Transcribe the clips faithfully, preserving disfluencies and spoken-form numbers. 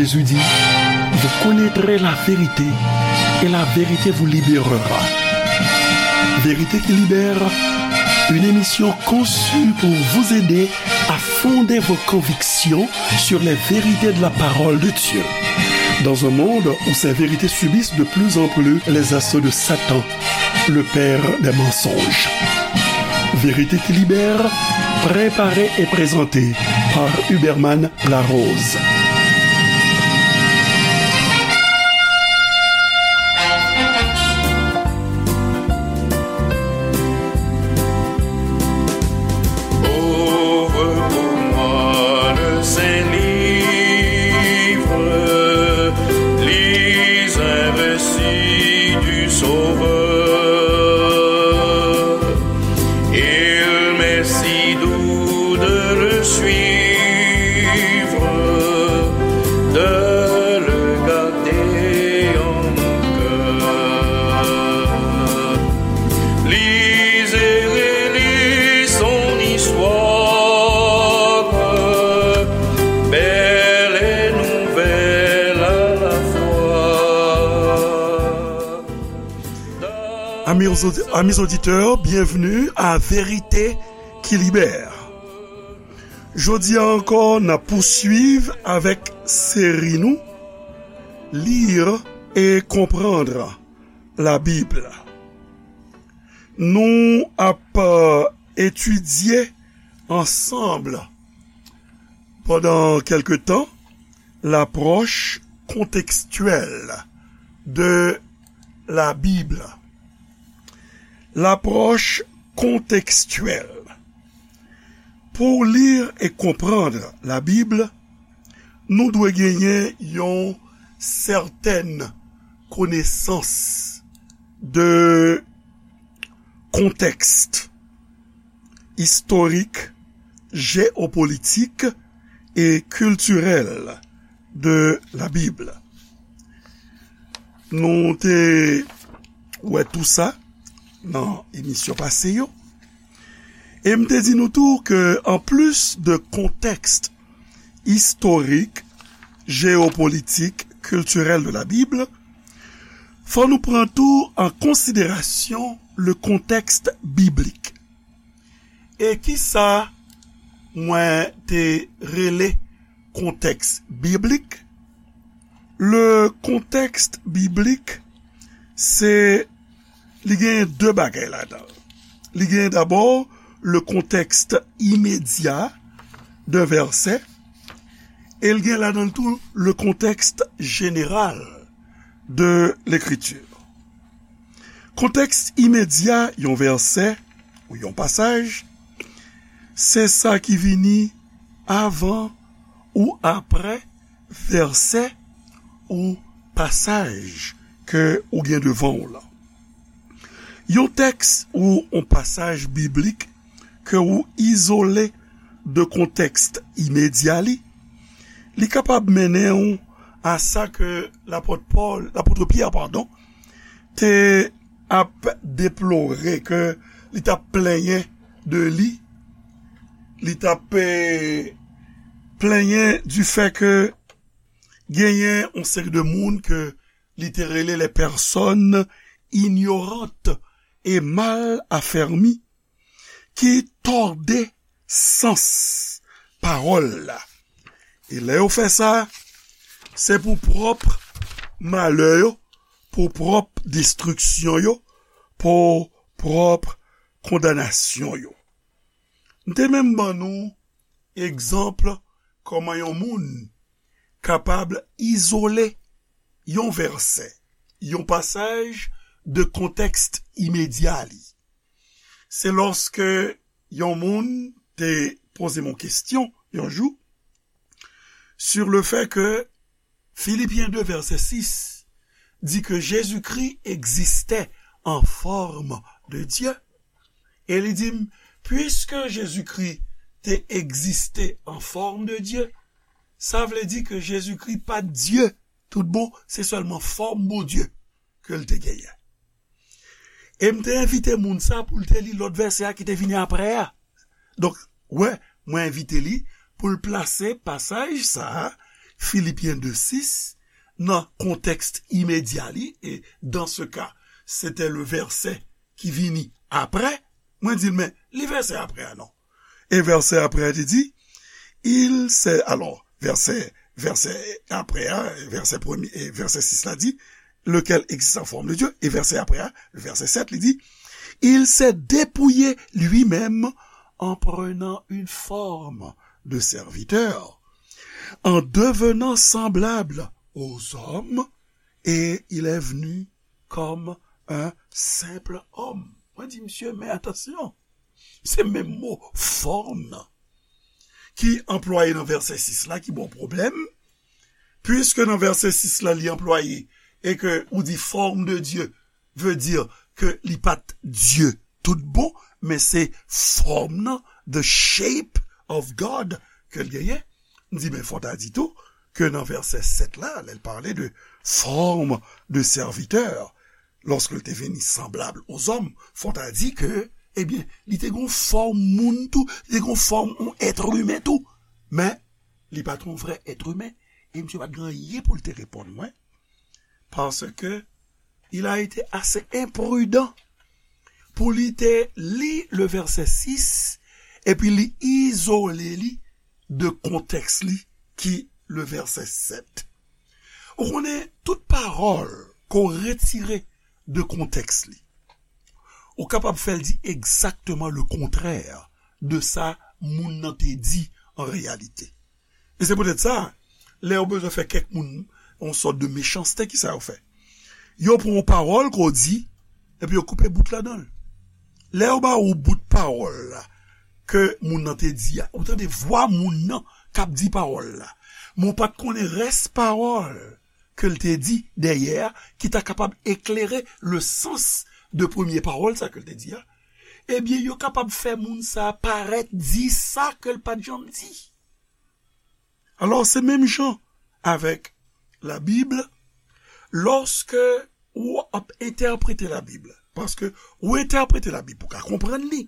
Jésus dit, vous connaîtrez la vérité et la vérité vous libérera. Vérité qui libère, une émission conçue pour vous aider à fonder vos convictions sur les vérités de la parole de Dieu. Dans un monde où ces vérités subissent de plus en plus les assauts de Satan, le père des mensonges. Vérité qui libère, préparée et présentée par Huberman Larose. Ouvre pour moi le Saint-Livre, lis un récit du Sauveur. Il m'est si doux de le suivre, de le garder en mon cœur. Lis et relis son histoire, belle et nouvelle à la fois. Amis audi-, amis auditeurs, bienvenue à Vérité qui libère. Jodi a ankò, n ap pouswiv avèk seri nou, Lire et comprendre la Bible. Nou ap, euh, etidye ansanm pandan kèlke tan l'approche contextuelle de la Bible. L'approche contextuelle. Pou w li e konprann Labib, nou dwe genyen yon sètèn konesans de kontèks istorik, jeyopolitik e kiltirèl de Labib. Nou te wè tou sa nan emisyon pase yo. E m te di nou tou ke anplis de kontèks istorik, jeyopolitik, kiltirèl de Labib, fò nou pran tou an konsiderasyon le contexte biblique. E kisa mwen te rele kontèks biblik? Le contexte biblique, se, li gen de bagay ladan. Li gen dabò le contexte immédiat d'un verset, e l gen ladan l tou le contexte général de l'écriture. Kontèks imedya yon vèsè ou yon pasaj, se sa ki vini avan ou aprè vèsè ou pasaj ke ou gen devan w lan. Yon tèks ou yon pasaj biblik ke ou izole de kontèks imedya li, li kapab mennen w a sa ke lapòt Pòl, lapòt Pyè, padon, te ap deplore, ke li t ap plenyen de li, li t ap, eh, plenyen du fait ke genyen yon seri de moun ke li te rele les personnes ignorantes et mal affermies, ki tòde sans pawòl la. E lè yo fè sa, se pou pwòp malè yo, pou pwòp destriksyon yo, pou pwòp kondanasyon yo. M te menm ban nou egzanp kòman yon moun kapab izole yon vèsè, yon pasaj de kontèks imedya li. Se lòske yon moun te poze m yon kesyon yon jou sur le fait que Philippiens deux, verset six, di ke Jezikri egziste an fòm de Dye. E li di m, puiske Jezikri te egziste an fòm de Dye, sa vle di ke Jezikri pa t Dye tout bon, se sèlman fòm Bondye ke l te genyen. E m te envite moun sa pou l te li lòt vèsè a ki te vini aprè a. Donk, wè, mwen envite li pou l plase pasaj sa a Filipyen de sis, nan kontèks imedya li, e dans ce cas, c'était le verset ki vini apre, mwen di l, men, li vèsè apre a non. E vèsè apre a te di, il s'est, alò, vèsè, vèsè apre a, vèsè premye, e vèsè sis la di, lequel existe en forme de Dieu. E vèsè apre a, vèsè sèt, li di, il s'est dépouillé lui-même en prenant une forme de serviteur, en devenant semblable aux hommes, et il est venu comme un simple homme. Mwen di, mesye, men atansyon. Se menm mo fòm nan ki anplwaye nan vèsè sis la ki ba w pwoblèm, puiske nan vèsè sis la li anplwaye e ke ou di forme de Dieu veut dire ke li pa t Dye tout bon, men se fòm nan, the shape of God, ke l genyen. M di, men fò ta di tou ke nan vèsè sèt la, lè l pale de forme de serviteur, lorsque il était venu semblable aux hommes, fò ta di ke, ebyen, li te gon fòm moun tou, li te gon fòm yon èt imen tou. Men, li pa t yon vrè èt imen, e misye pa t gen anyen pou l te reponn mwen, parce que il a été assez imprudent pou li te li le verset six, epi li izole li de kontèks li ki le verset sept. Ou konnen, tout pawòl ke w retire de kontèks li, ou kapab fè l di egzakteman le kontrè de sa moun nan te di an reyalite. E se poutèt sa, lè yo bezwen fè kèk moun yon sòt de mechanste, ki sa yo fè? Yo pran yon pawòl ke w di, epi yo koupe bout ladan l. Lè yo ba ou bout pawòl la, ke moun nan te di a, ou tande vwa moun nan k ap di pawòl la. Men w pa t konnen rès pawòl ke l te di dèyè a, ki ta kapab eklere le sans de premye pawòl sa ke l te di a. Ebyen, yo kapab fè moun sa parèt di sa ke l pa t janm di. Alò, se menm jan avèk Labib, lòske ou ap entèprete Labib, paske ou entèprete Labib pou ka konprann li.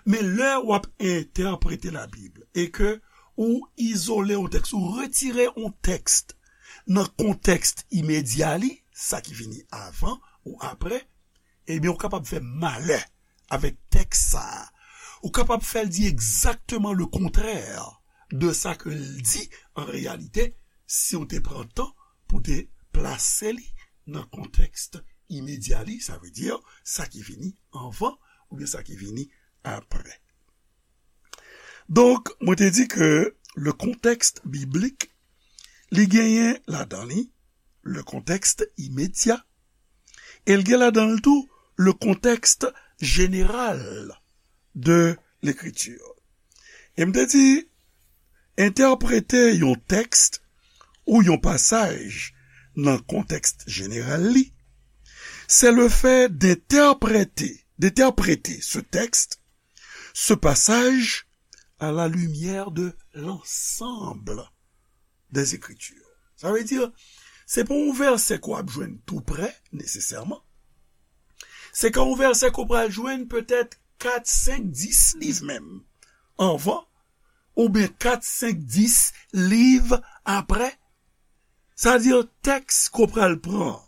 Men lè w ap entèprete Labib e ke ou izole yon tèks, ou retire yon tèks nan kontèks imedya li, sa ki vini avan ou apre, ebyen, ou kapab fè malè avèk tèks sa a. Ou kapab fè l di egzakteman le kontrè de sa ke l di an reyalite, si w te pran tan pou te plase li nan kontèks imedya li, sa vle di sa ki vini anvan oubyen sa ki vini apre. Donk, mwen te di ke le contexte biblique, li genyen ladan li le contexte immédiat, e l gen ladan l tou le contexte général de l'écriture. E m te di, entèprete yon tèks ou yon pasaj nan kontèks jeneral li, c'est le fait d'interpréter, d'interpréter ce texte, ce passage, à la lumière de l'ensemble des Écritures. Sa vle di, se pa yon vèsè ke w ap jwenn tou prè, nesesèman. Se ka yon vèsè ke w pral jwenn petèt kat, senk, dis liv menm anvan, oubyen kat, senk, dis liv apre. Sa vle di, tèks ke w pral pran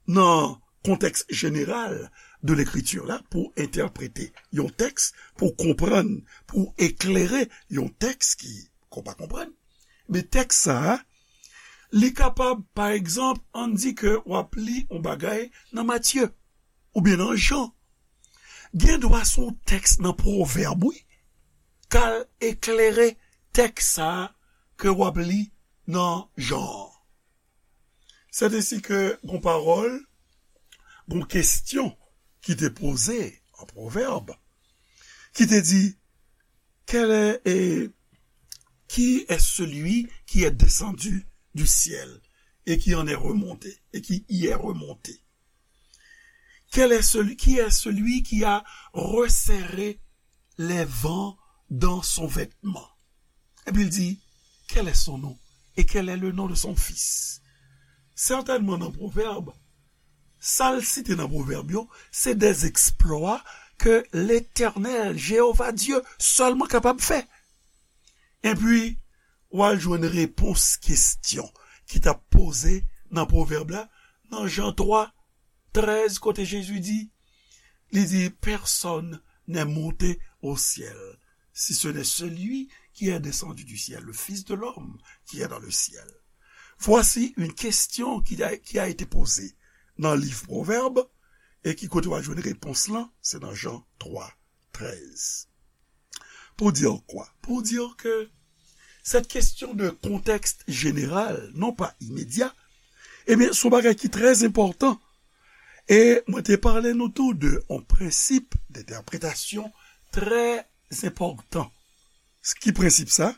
nan kontèks jeneral de lekriti la pou entèprete yon tèks, pou konprann, pou eklere yon tèks ki, ke w pa konprann. Men tèks sa a, li kapab, pa egzanp, ann di ke w ap li yon bagay nan Matye, oubyen nan Jan. Gen dwa se yon tèks nan Pwovèb, wi, k al eklere tèks sa a ke w ap li nan Jan an. Sèt ensi ke gon pawòl, gon kesyon ki te poze an Pwovèb, ki te di, quel est, et, qui est celui qui est descendu du ciel et qui en est remonté, et qui y est remonté? Quel est celui, qui est celui qui a resserré les vents dans son vêtement? Epi l di, quel est son nom? Et quel est le nom de son fils? Sètènman nan Pwovèb, sa l site nan Pwovèb yo, se des exploits ke Letènèl, Jewova Dye, sèlman kapab fè. Epi, w al jwenn repons kesyon ki t ap poze nan pwovèb la, nan Jan twa, trèz, kote Jezi di, li di, personne n'est monté au ciel, si ce n'est celui qui est descendu du ciel, le Fils de l'homme qui est dans le ciel. Voici une question qui a, qui a été posée nan liv Pwovèb, e ki kote w a jwenn repons lan, se nan Jan twa, trèz. Pour dire quoi? Pour dire que cette question de contexte général, non pas immédiat, ebyen, se yon bagay ki trè enpòtan. E mwen te pale nou tou de yon prensip dentèpretasyon trè enpòtan. Ki prensip sa?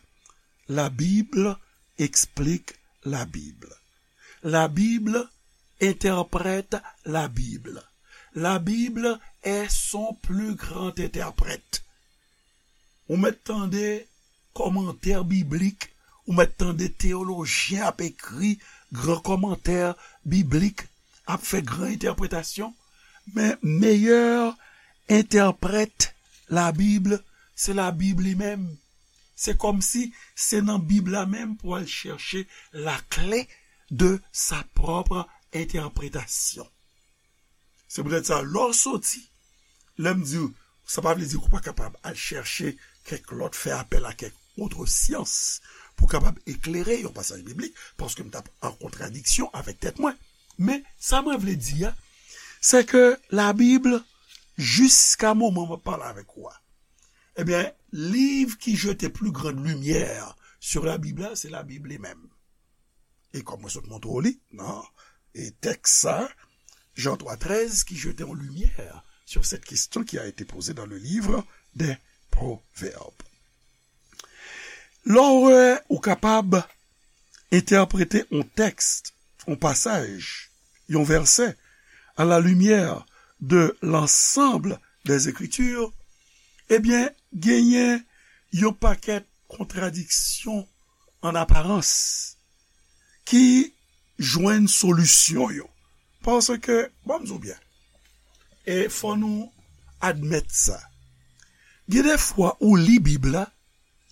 La Bible explique la Bible. La Bible interprète la Bible. La Bible est son plus grand interprète. Ou mèt tande kòmantè biblik, ou mèt tande teyolojyen ap ekri gran kòmantè biblik, ap fè gran entèpretasyon, men meyè entèprèt Labib, se Labib li menm. Se kòmsi se nan Bib la menm pou al chèche la clé de sa propre interprétation. Se poutèt sa, lè w soti, lè m di w, sa pa vle di ke w pa kapab al chèche kèk lòt, fè apèl a kèk lòt syans pou kapab eklere yon pasaj biblik, paske m t ap an kontradiksyon avèk tèt mwen. Men, sa mwen vle di a, se ke Labib, jiska moman m ap pale avèk ou a, ebyen, livre qui jetait plus grande lumière sur la Bible la, se Labib li menm. E kòm mwen sot montre w li nan, e, tèks sa, Jan twa trèz, qui jetait en lumière sur cette question qui a été posée dans le livre des Proverbes. Lè w wè ou kapab entèprete yon tèks, yon pasaj, yon vèsè, à la lumière de l'ensemble des Écritures, ebyen, genyen yon pakèt kontradiksyon an aparans ki jwenn solisyon yo. Paske, ban m di w byen, e fò nou admèt sa. Gen de fwa ou li Bib la,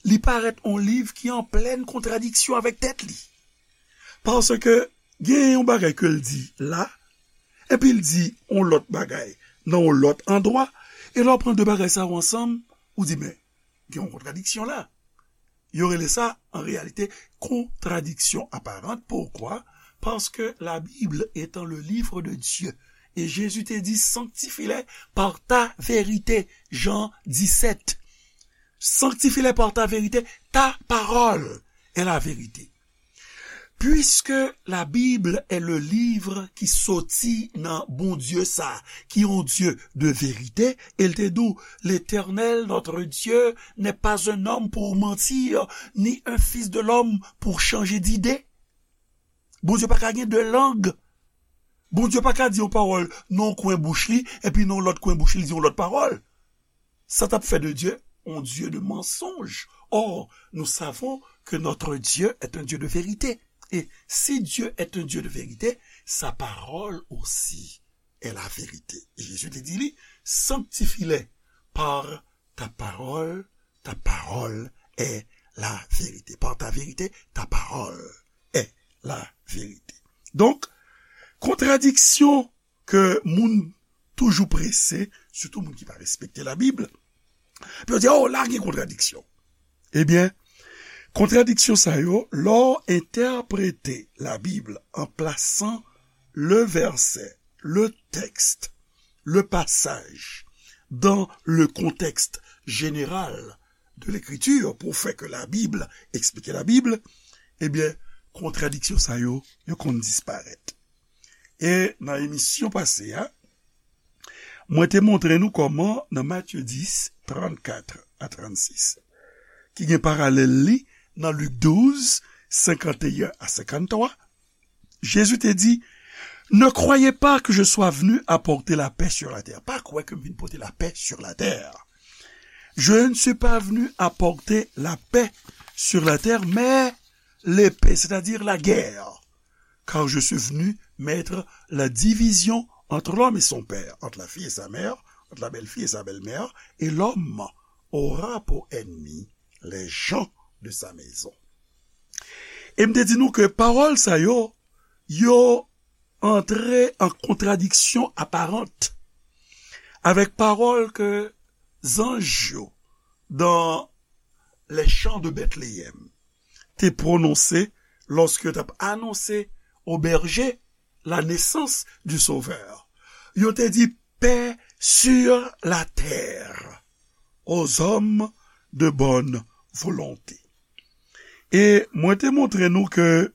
li parèt yon liv ki an plèn kontradiksyon avèk tèt li. Paske gen yon bagay ke l di la, epi l di yon lòt bagay nan yon lòt andwa, e lè w pran de bagay sa yo ansanm, ou di, men, gen yon kontradiksyon la. Yo rele sa, an reyalite, contradiction apparente. Pourquoi? Parce que la Bible étant le livre de Dieu. Et Jésus te dit, sanctifie-les par ta vérité. Jean dix-sept. Sanctifie-les par ta vérité. Ta parole est la vérité. Puisque la Bible est le livre ki soti nan Bondye sa, ki yon Dye de verite, e l te di w, L'Éternel, notre Dieu, n'est pas un homme pour mentir, ni un fils de l'homme pour changer d'idée. Bondye pa ka gen de lang. Bondye pa ka di yon pawòl nan yon kwen bouch li, epi nan yon lòt kwen bouch li, li di yon lòt pawòl. Ça t ap fait de Dieu un Dieu de mensonge. Or, nous savons que notre Dieu est un Dieu de vérité. Et si Dieu est un Dieu de vérité, sa parole aussi est la vérité. E Jezi te di li, sanctifie-les par ta parole, ta parole est la vérité. Par ta vérité, ta parole est la vérité. Donk, kontradiksyon ke moun toujou prese, sitou moun ki pa respekte Labib, pou yo di, oh, la gen kontradiksyon. Ebyen, kontradiksyon sa yo, lè w entèprete Labib an plasan le verset, le texte, le passage dans le contexte général de l'écriture pou fè ke Labib eksplike Labib, ebyen, kontradiksyon sa yo, yo konn disparèt. E nan emisyon pase a, mwen te montre nou kòman nan Matye dis, trannkat a trannsis, ki gen paralèl li nan Lik douz, senkanteyen a senkanntwa, Jezi te di, ne croyez pas que je sois venu apporter la paix sur la terre. Pa kwè ke m vin pote lapè sur la terre. Je ne suis pas venu apporter la paix sur la terre, mais l'épée, c'est-à-dire la guerre. Car je suis venu mettre la division entre l'homme et son père, entre la fille et sa mère, entre la belle-fille et sa belle-mère, et l'homme aura pour ennemi les gens de sa maison. E m te di nou ke pawòl sa yo, yo antre an kontradiksyon aparant avèk pawòl ke zanj yo dans les champs de Bethléem te pwononse lòske yo t ap anonse aux bergers la naissance du Sauveur. Yo te di, paix sur la terre aux hommes de bonne volonté. E mwen te montre nou ke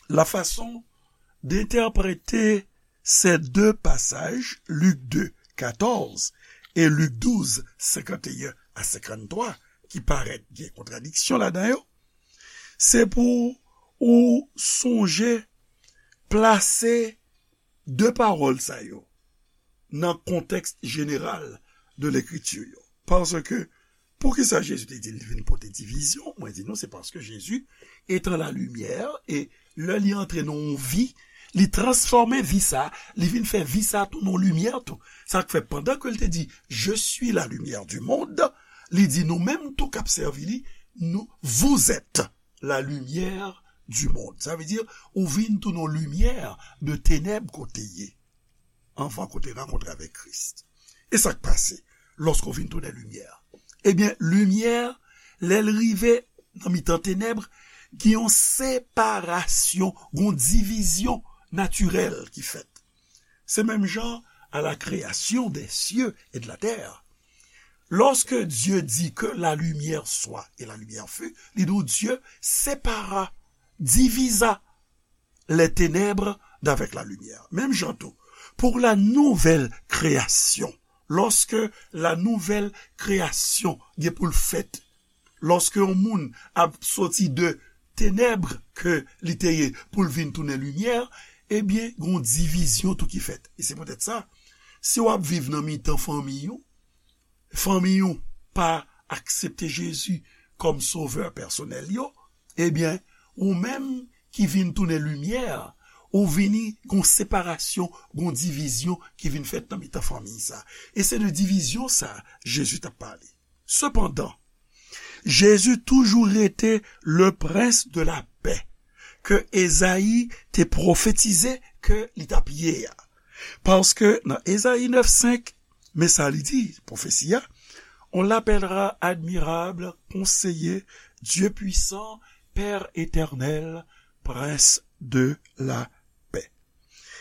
la fason d'entèprete ces deux passages, Lik de, katòz, e Lik douz, senkanteyen a senkanntwa, ki parèt gen kontradiksyon ladan yo, se pou ou sonje plase de pawòl sa yo nan kontèks jeneral de lekriti yo. Paske, poukisa Jezi te di li vin pote divizyon? Mwen di nou, se paske Jezi, etan la limyè, e lè li antre nan yon vi, li transfòme vi sa, li vin fè vi sa tou yon limyè tou. Sa k fè, pandan ke l te di, je suis la lumière du monde, li di nou menm tou k ap sèvi li, nou, vous êtes la lumière du monde. Sa vle di, ou vin tou yon limyè de tenèb kote ye. Anvan ke w te rankontre avèk Kris. E sa k pase lòske w vin tounen limyè? Ebyen, limyè, lè l rive nan mitan tenèb, gen yon separasyon, gen yon divizyon natirèl ki fèt. Se menm jan à la création des cieux et de la terre. Lorsque Dieu dit que la lumière soit et la lumière fut, li di w Dieu sépara, divisa les ténèbres d'avec la lumière. Menm jan tou, pour la nouvelle création, lorsque la nouvelle création gen pou l fèt, lorsque yon moun ap soti de tenèb ke li te ye pou l vin tounen limyè, ebyen, gen yon divizyon tou ki fèt. E se poutèt sa, si w ap viv nan mitan fanmi w, fanmi w pa aksepte Jezi kòm sovè pèsonèl yo, ebyen, ou menm ki vin tounen limyè, ou vini gon separasyon, gon divizyon ki vin fèt nan mitan fanmi sa. E se de divizyon sa Jezi t ap pale. Sepandan, Jezi toujou rete le prince de la paix ke Ezayi te pwofetize ke li t ap ye a. Paske nan Ezayi nèf senk, men sa li di, pwofesi a, on l'appellera admirable, conseiller, Dieu puissant, Père éternel, prince de la paix.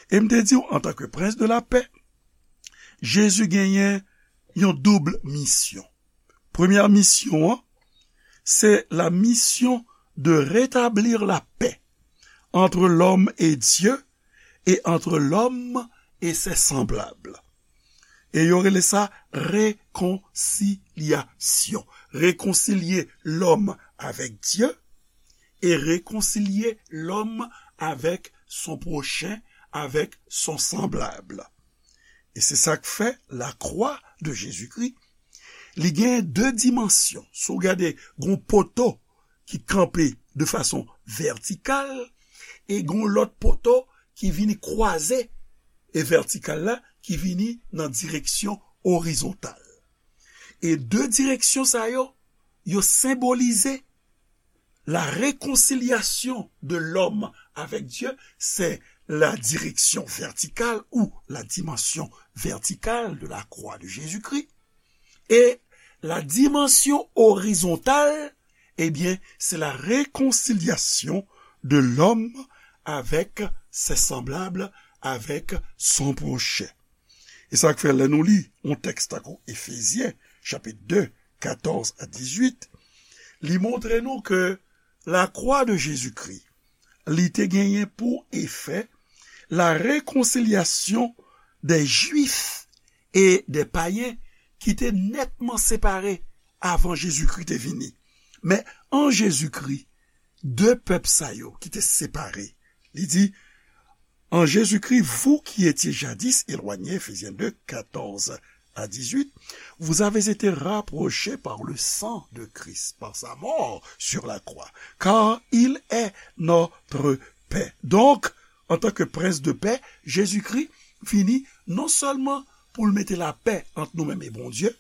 E m te di w, antanke prince de la paix, Jezi genyen yon doub misyon. Premyè misyon an, c'est la mission de rétablir la paix entre l'homme et Dieu et entre l'homme et ses semblables. E yo rele sa rekonsilyasyon. Rekonsilye lòm avèk Dye e rekonsilye lòm avèk son pwochen, avèk son sanblab. E se sa k fè lakwa de Jezikri, li gen de dimansyon. Si w gade, gon poto ki kanpe de fason vètikal e gon lòt poto ki vini kwaze e vètikal la ki vini nan direksyon orizontal. E de direksyon sa yo, yo senbolize la réconciliation de l'homme avec Dieu, c'est la direction verticale ou la dimension verticale de la croix de Jésus-Christ. Et la dimension horizontale, eh bien, c'est la réconciliation de l'homme avec ses semblables, avec son prochain. E sa k fè lè nou li yon tèks tankou Efezyen, chapit de, katòz a dizuit, li montre nou ke lakwa de Jezikri, li te genyen pou efè la réconciliation des Juifs et des païens ki te nètman separe avan Jezikri te vini. Men an Jezikri, de pèp sa yo ki te separe, li di, en Jésus-Christ, vous qui étiez jadis éloignés, Éphésiens deux, quatorze à dix-huit, vous avez été rapprochés par le sang de Christ, par sa mort sur la croix, car il est notre paix. Donk, antanke prens de pè, Jezikri vini non sèlman pou l mete lapè ant nou menm e Bondye,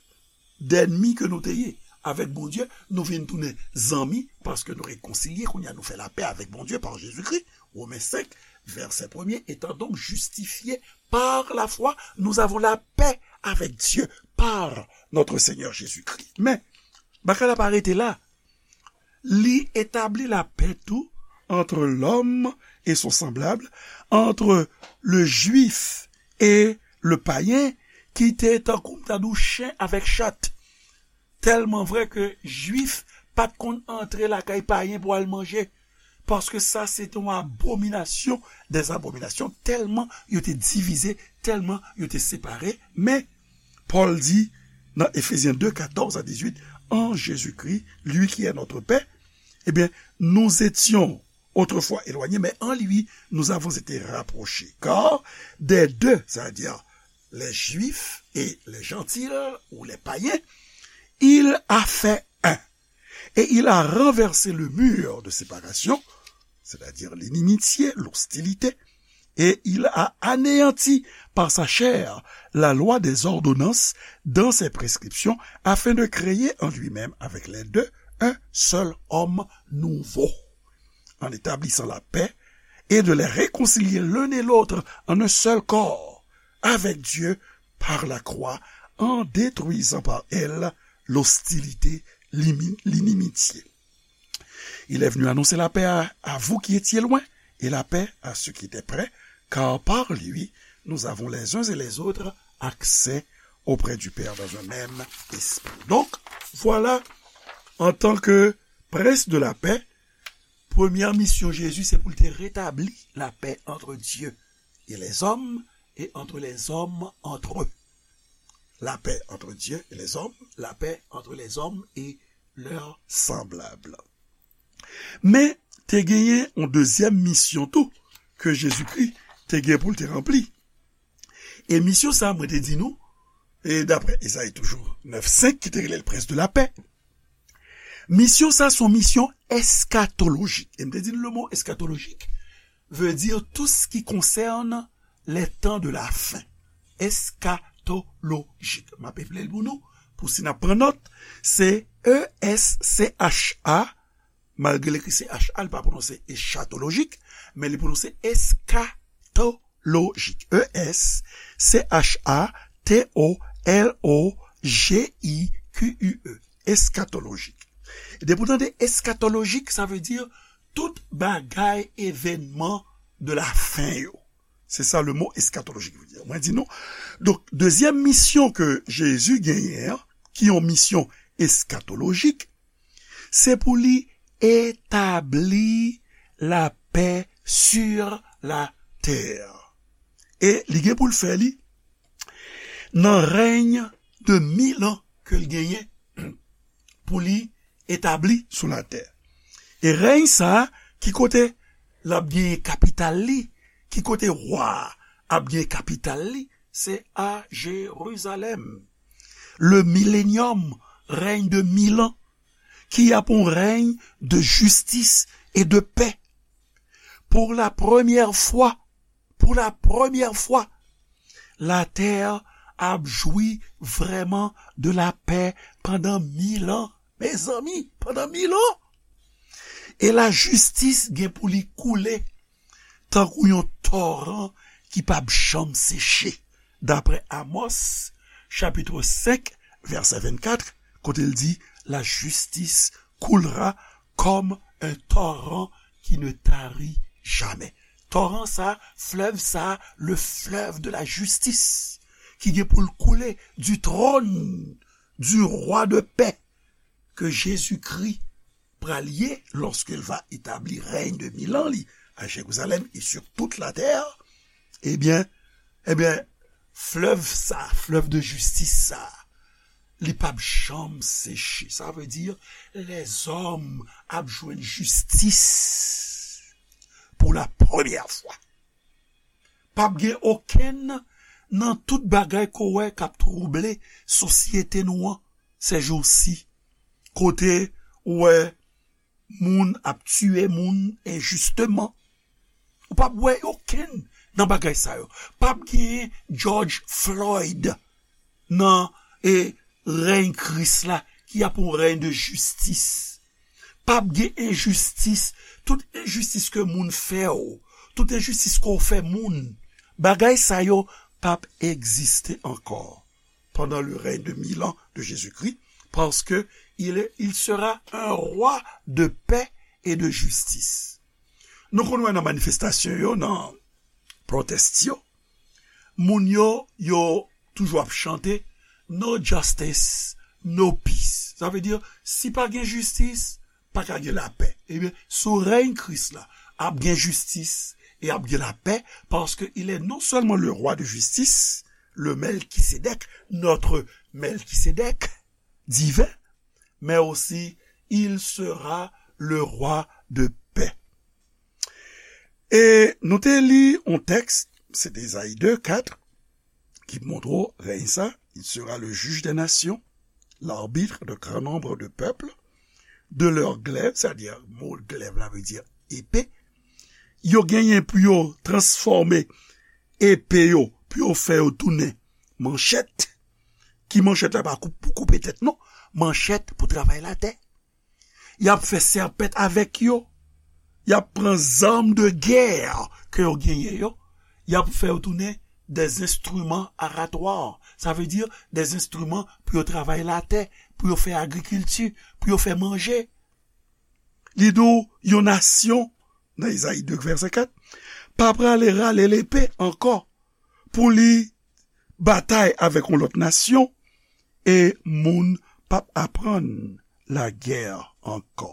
dènmi ke nou te ye avèk Bondye, nou vin tounen zanmi, paske nou rekonsilye, kounye a nou fè lapè avèk Bondye pa Jezikri. Romains cinq, verset premier, étant donc justifiés par la foi, nous avons la paix avec Dieu par notre Seigneur Jésus-Christ. Men, bagay la pa rete la. Li établit la paix tout entre l'homme et son semblable, entre le juif et le païen, ki te tankou m ta di w chen avèk chat. Tèlman vrè ke jwif pa t konn antre lakay payen pou al manje. Paske sa se te yon abominasyon dè abominasyon, tèlman yo te divize, tèlman yo te separe. Men, Pòl di nan Éphésiens deux, quatorze à dix-huit, en Jésus-Christ, lui qui est notre paix, eh bien, nous étions autrefois éloignés, mais en lui, nous avons été rapprochés. Car des deux, c'est-à-dire les Juifs et les Gentils, ou les païens, il a fait un. Et il a renversé le mur de séparation, c'est-à-dire l'inimitié, l'hostilité, et il a anéanti par sa chair la loi des ordonnances dans ses prescriptions, afin de créer en lui-même avec les deux un seul homme nouveau, en établissant la paix, et de les réconcilier l'un et l'autre en un seul corps avec Dieu par la croix, en détruisant par elle l'hostilité, l'imi-, l'inimitié. Il est venu annoncer la paix à, à vous qui étiez loin, et la paix à ceux qui étaient près, car par lui, nous avons les uns et les autres accès auprès du Père dans un même esprit. Donc, voilà, en tant que prince de la paix, première mission Jésus, c'est pour te rétablir la paix entre Dieu et les hommes, et entre les hommes entre eux. La paix entre Dieu et les hommes, la paix entre les hommes et leurs semblables. Men, te genyen yon dezyèm misyon tou ke Jezikri te gen pou l te ranpli. E misyon sa, mwen te di nou, e daprè Ezayi toujou nèf senk, ki te rele l Prince de la Paix, misyon sa se yon misyon eskatolojik. E m te di nou le mo eskatolojik veut dire tout ce qui concerne les temps de la fin. Eskatolojik. M ap eple l pou nou, pou si n ap pran nòt, se E S C H A, malgre l ekri C H A, li pa pwononse eskatolojik, men li pwononse eskatolojik. E S C H A T O L O J I Q U E. Eskatolojik. E depi w tande eskatolojik, sa vle di tout bagay, evènman de la fen yo. Se sa le mo eskatolojik vle di. Mwen di nou. Donk, dezyèm misyon ke Jezi genyen an, ki yon misyon eskatolojik, se pou li etabli lapè sur la tè. E li gen pou l fè li nan rèy de mil an ke l genyen pou li etabli sou latè. E rèy sa a, ki kote l ap genyen kapital li, ki kote wa a ap genyen kapital li, se a Jerizalèm. Le millénium, règne de mille ans, qui a pour règne de justice et de paix. Pour la première fois, pour la première fois, la tè ap jwi vrèman de la pè pandan mil an. Mezanmi, pandan mil an! E lajistis gen pou li koule tankou yon toran ki p ap janm seche. Daprè Amos, chapit senk, vèsè vennkat, kote l di, la justice coulera comme un torrent qui ne tarit jamais. Toran sa, flèv sa, le fleuve de la justice, ki gen pou l koule du trône du roi de paix, ke Jezikri pral ye, lorsqu'il va établir règne de mille ans, li, à Jérusalem et sur toute la terre, ebyen, ebyen, flèv sa, flèv de jistis sa, li p ap janm seche. Sa vle di, lèzòm ap jwenn jistis pou la premyè fwa. P ap gen okenn nan tout bagay ke w wè k ap twouble sosyete nou an sèjousi, kote w wè moun ap tiye moun enjisteman. Ou p ap wè okenn nan bagay sa yo. P ap genyen George Floyd nan, e, rèy Kris la, y ap yon rèy de jistis. P ap gen enjistis. Tout enjistis ke moun fè w, tout enjistis ke w fè moun, bagay sa yo p ap egziste ankò pendant le règne de mille ans de Jésus-Christ, parce que il est, il sera un roi de paix et de justice. Nou konn wè nan manifestasyon yo, nan protest yo, moun yo, yo toujou ap chante, "No justice, no peace." Sa vle di, si pa gen jistis, pa ka gen lapè. Ebyen, sou rèy Kris la, ap gen jistis e ap gen lapè, paske il est non seulement le roi de justice, le Melchisédek, notre Melchisédek divin, mais aussi il sera le roi de paix. E nou te li yon tèks, se te Ezayi de, kat, ki montre w rèy sa, il sera le juge des nations, l'arbitre de grand nombre de peuples, de leurs glaives, sa di mo glèv la vle di epe, yo genyen pou yo transfòme epe yo, pou yo fè yo tounen manchèt. Ki manchèt la pa pou koupe tèt non, manchèt pou travay latè. Y ap fè sèpèt avèk yo. Y ap pran zam de gè ke yo genyen yo. Y ap fè yo tounen des instruments aratoires. Sa vle di des instruments pou yo travay latè, pou yo fè agrikilti, pou yo fè manje. Li di w yon nasyon, nan Ezayi de vèsè kat, pa prale rale lepe ankò pou li batay avèk yon lòt nasyon, e moun p ap aprann lagè ankò.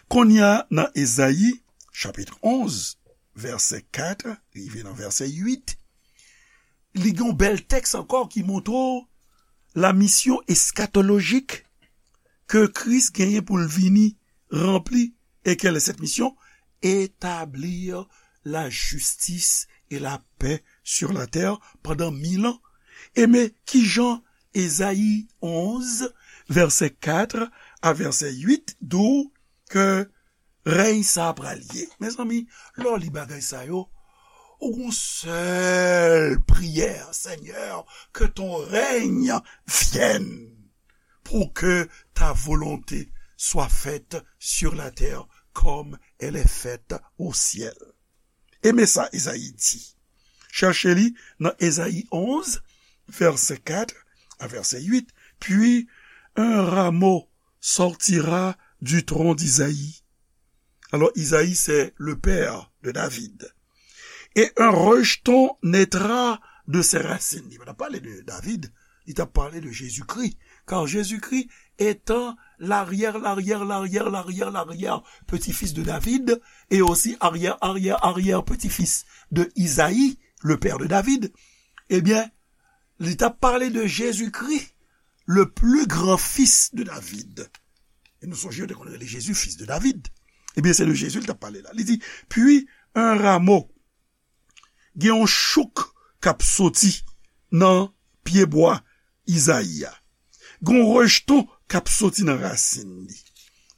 Kounye a, nan Ezayi, chapit onz, vèsè kat, rive nan vèsè uit, li gen yon bèl tèks ankò ki montre w la misyon eskatolojik ke Kris genyen pou l vini ranpli. Et quelle est cette mission? Établir la justice et la paix sur la terre pendant mille ans. E men kijan Ezayi onz, vèsè kat a vèsè uit, di w ke rèy sa a pral ye. Mezanmi, lè w li bagay sa yo, ou gon sèl priyè, Seigneur, que ton règne vienne, pour que ta volonté soit faite sur la terre comme elle est faite au ciel. E men sa Ezayi di. Chèche li nan Ezayi onz, vèsè kat a vèsè uit. Puis un rameau sortira du tronc d'Isaïe. Alors, Isaïe, c'est le père de David. Et un rejeton naîtra de ses racines. Li pa t ap pale de David, li t ap pale de Jezikri. Car Jésus-Christ étant l'arrière, l'arrière, l'arrière, l'arrière, l'arrière petit-fils de David, et aussi arrière, arrière, arrière petit-fils de Isaïe, le père de David, eh bien, li t ap pale de Jezikri, le plus grand fils de David. E nou sonje yo te konn rele Jezi fis de David. Ebyen, se de Jezi li t ap pale la. Li di, puis un rameau, gen yon chouk k ap soti nan pyebwa Izayi a. Gen yon rejeton k ap soti nan rasin li.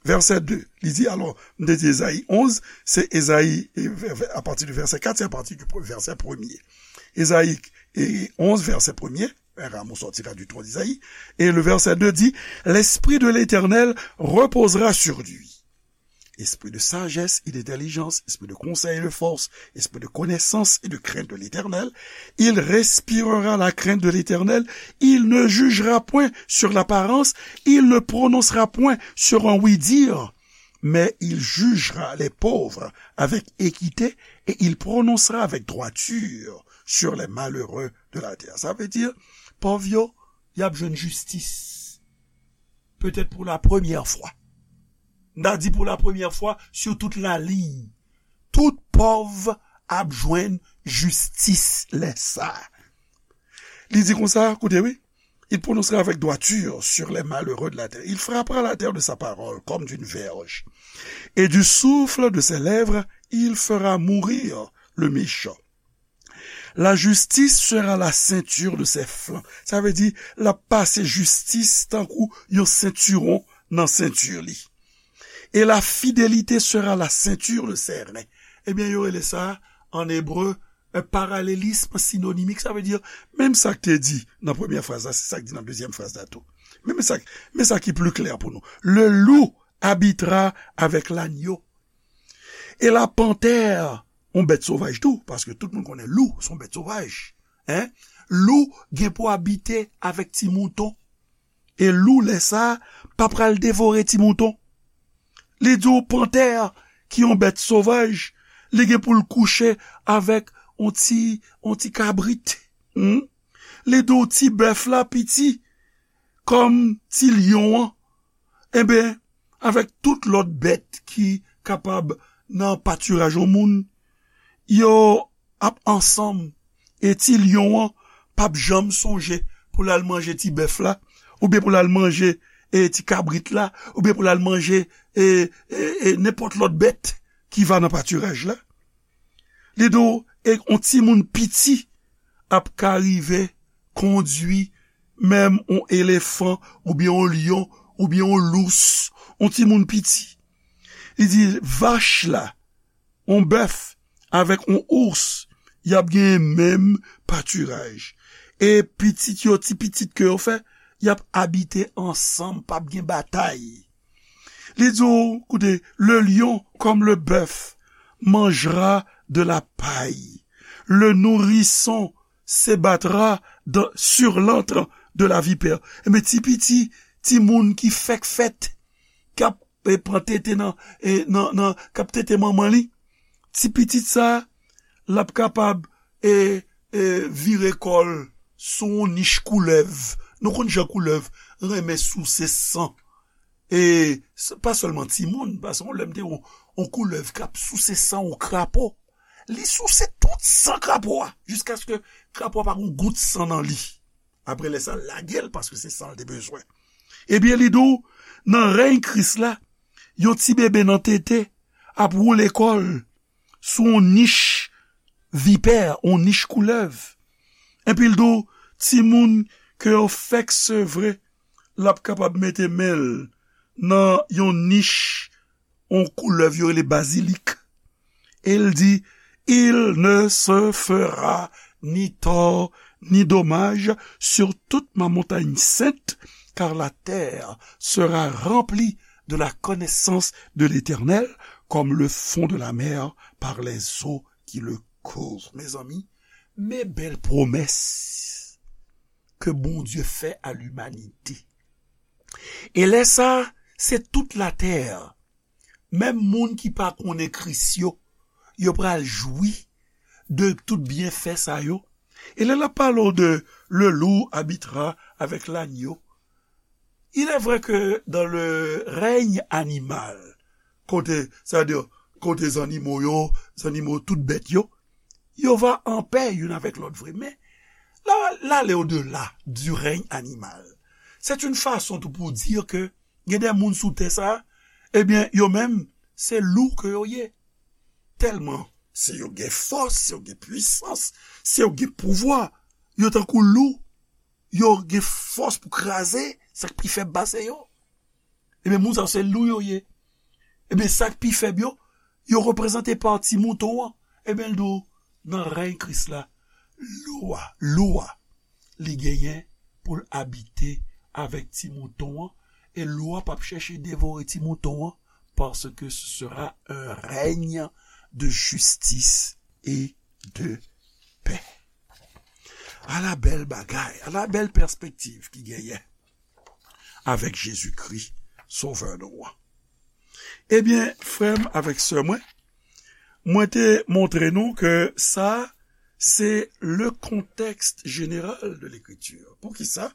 Vèsè de, li di, alò, m te di Ezayi onz, se Ezayi, e, vè- vè- apati de vèsè kat, se apati de pre- vèsè premye. Ezayi e, onz, vèsè premye, un rameau sortira du tronc d'Isaïe, et le verset deux dit, l'Esprit de l'Éternel reposera sur lui. Esprit de sagesse et d'intelligence, esprit de conseil et de force, esprit de connaissance et de crainte de l'Éternel. Il respirera la crainte de l'Éternel. Il ne jugera point sur l'apparence. Il ne prononcera point sur un oui-dire. Mais il jugera les pauvres avec équité et il prononcera avec droiture sur les malheureux de la terre. Sa vle di, pòv yo, y ap jwenn jistis. Petèt pou la premyè fwa. M ta di pou la premyè fwa sou tout laliy. Tout pòv ap jwenn jistis lè sa. Li di konsa, koute wi, il prononcera avec droiture sur les malheureux de la terre. Il frappera la terre de sa parole comme d'une verge. Et du souffle de ses lèvres, il fera mourir le méchant. La justice sera la ceinture de ses flancs. Sa vle di, l ap pase jistis tankou yon sentiwon nan senti li. Et la fidélité sera la ceinture de ses reins. Ebyen, yo rele sa, an ebre, Un parallélisme synonymique, sa vle di, menm sa k te di nan premyè fraz la, se sa k di nan dezyèm fraz la tou. Men, men sa, men sa ki pli klè pou nou. Le loup habitera avec l'agneau. E la pantè, yon bèt sovaj tou, paske tout moun konnen lou, se yon bèt sovaj. Hein? Lou gen pou abite avèk ti mouton. E lou, lè sa, pa pral devore ti mouton. Li di w pantè, ki yon bèt sovaj, li gen pou l kouche avèk yon ti, yon ti kabrit. Hmm? Li di w ti bèf la piti, kòm ti lyon an. Enben, avèk tout lòt bèt ki kapab nan patiraj yon moun, yo ap ansanm, e ti lyon an p ap janm sonje pou l al manje ti bèf la, oubyen pou l al manje, e, ti kabrit la, oubyen pou l al manje, e, e, e, nenpòt lòt bèt ki va nan patiraj la. Li di w, e yon timoun piti ap ka rive kondui menm yon elefan, oubyen yon lyon, oubyen yon lous, yon timoun piti. Li di, vach la, yon bèf avèk yon ous, y ap genyen menm patiraj. E pitit yo, ti pitit ke yo fè, y ap abite ansanm, p ap gen batay. Li di w, koute, le lion comme le bœuf mangera de la paille. Le nourrisson se battra dans, sur l'antre de la vipère. Enben, ti piti, ti moun ki fèk fèt, k ap, e, pran tete nan, e, nan, nan, k ap tete manman li, ti pitit sa, l ap kapab, e, e, vire kò l sou yon nich koulèv. Nou konn jan koulèv renmen souse san. E s-, pa sèlman timoun, paske yon lè m te wè yon, yon koulèv k ap souse san yon krapo. Li souse tout san krapo a, jiskaske krapo a pa gen gout san nan li. Apre lè sa, l lage l, paske se san l te bezwen. Ebyen, li di w, nan rèy Kris la, yon ti bebe nan tete ap woule kò l sou yon nich vipè, yon nich koulèv. Epi l di w, timoun ke yo fèk sevre, l ap kapab mete men l nan yon nich, yon koulèv yo rele bazilik. E l di, il ne se fera ni tort ni dommage sur toute ma montagne sainte, car la terre sera remplie de la connaissance de l'Éternel, comme le fond de la mer par les eaux qui le couvrent. Mezanmi, men bèl pwomès ke Bondye fè a limanite. E lè sa, se tout latè, menm moun ki pa konnen Kris yo, yo pral jwi de tout byenfè sa yo. E lè l ap pale w de le loup habitera avec l'agneau, il est vrai que dans le règne animal, kote, sa vle di, kote zannimo yo, zannimo, tout bèt yo, yo va an pè youn avèk lòt vre. Men, la, l ale odela du règne animal. C'est une façon tou pou di ke gen de moun sou tè sa, ebyen, yo menm, se lou ke yo ye. Tèlman, se yo gen fòs, se yo gen pwisans, se yo gen pouvwa, yo tankou lou, yo gen fòs pou kraze sa k pi fèb pase yo. Ebyen, moun sa yo se lou yo ye. Ebyen, sa k pi fèb yo, yo reprezante pa ti mouton an. Ebyen, l di w, nan rèy Kris la, lou a, lou a, li genyen pou l abite avèk ti mouton an, e lou a p ap chèche devore ti mouton an, parce que ce sera un règne de justice et de paix. Ala bèl bagay, ala bèl pèspektiv ki genyen avèk Jezikri, Sovè nou an. Ebyen, frè m avèk sè mwen, mwen te montre nou ke sa, se le contexte général de l'écriture. Poukisa?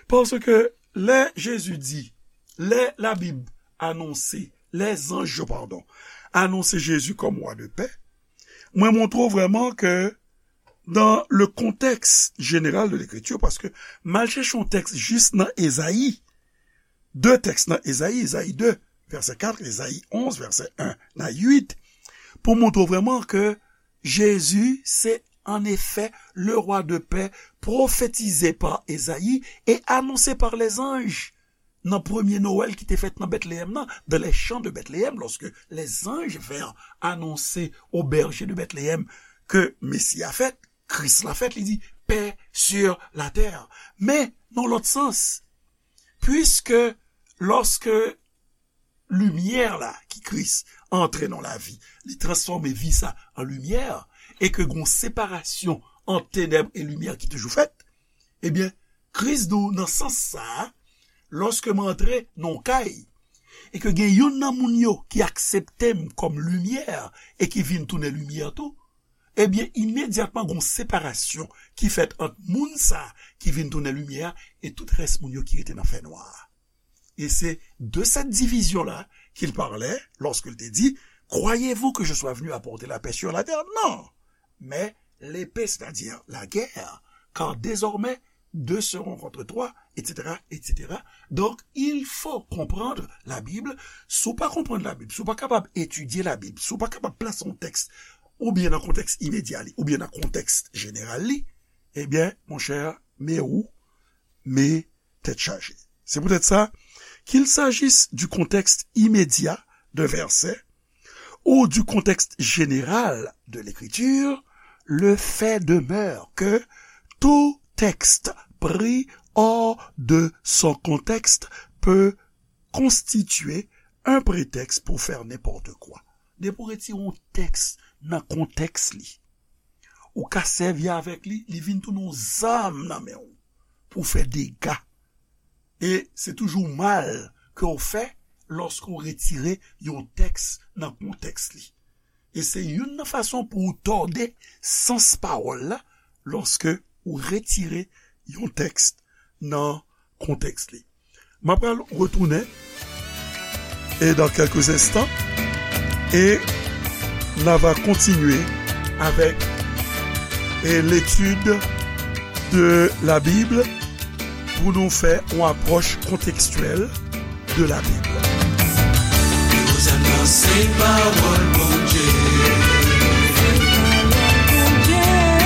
Paske lè Jezi di, lè Labib anonse, lè zanj yo, padon, anonse Jezi kòm wa de pè, mwen montre w vrèman ke dans le contexte général de l'écriture, paske m al chèche yon tèks jis nan Ezayi, de tèks nan Ezayi, Ezayi de, vèsè kat, Ezayi onz, vèsè en a uit, pou montre w vrèman ke Jezi se, en effet, le roi de paix prophétisé par Esaïe et annoncé par les anges nan premye Nwèl ki te fèt nan Bètleyèm nan, dans les champs de Bethléem, lorsque les anges vinrent annoncer aux bergers de Bethléem ke Mesi a fèt, Kris la fèt, li di, paix sur la terre. Men, nan lòt sans, puiske lòske limyè la ki Kris antre nan lavi, li transfòme vi sa an limyè, e ke gon separasyon ant tenèb e limyè ki toujou fèt, ebyen, Kris di w nan sans sa a, lòske m antre nan yon kay, e ke gen youn nan moun yo ki aksepte m kòm limyè e ki vin tounen limyè tou, ebyen, imedyatman, gon separasyon ki fèt ant moun sa a ki vin tounen limyè a e tout rès moun yo ki rete nan fènwa a. Et c'est de cette division-là qu'il parlait lorsqu'il te dit, croyez-vous que je sois venu apporter la paix sur la terre? Non, mais l'épée, c'est-à-dire la guerre, car désormais, deux seront contre trois, et cetera, et cetera. Donc, il faut comprendre la Bible. Si w pa konprann la Bib, si w pa kapab etidye la Bib, si w pa kapab plase yon tèks oubyen nan kontèks imedya li, oubyen nan kontèks jeneral li, ebyen, monchè, men ou, men tèt chaje. C'est peut-être ça, qu'il s'agisse du contexte immédiat d'un verset ou du contexte général de l'écriture, le fait demeure que tout texte pris hors de son contexte peut constituer un prétexte pour faire n'importe quoi. Depi w retire yon tèks nan kontèks li, ou ka sèvi avèk li, li vin tounen yon zam nan men w pou w fè dega. E se toujou mal ke w fè lòske w retire yon tèks nan kontèks li. E se youn nan fason pou w tòde sans pawòl la lòske w retire yon tèks nan kontèks li. M ap pral retounen et dans quelques instants et n a va continuer avec et l'étude de la Bible pou nou fè yon apwòch kontekstyèl de la Bible. Kozann nan se pawòl Bondye.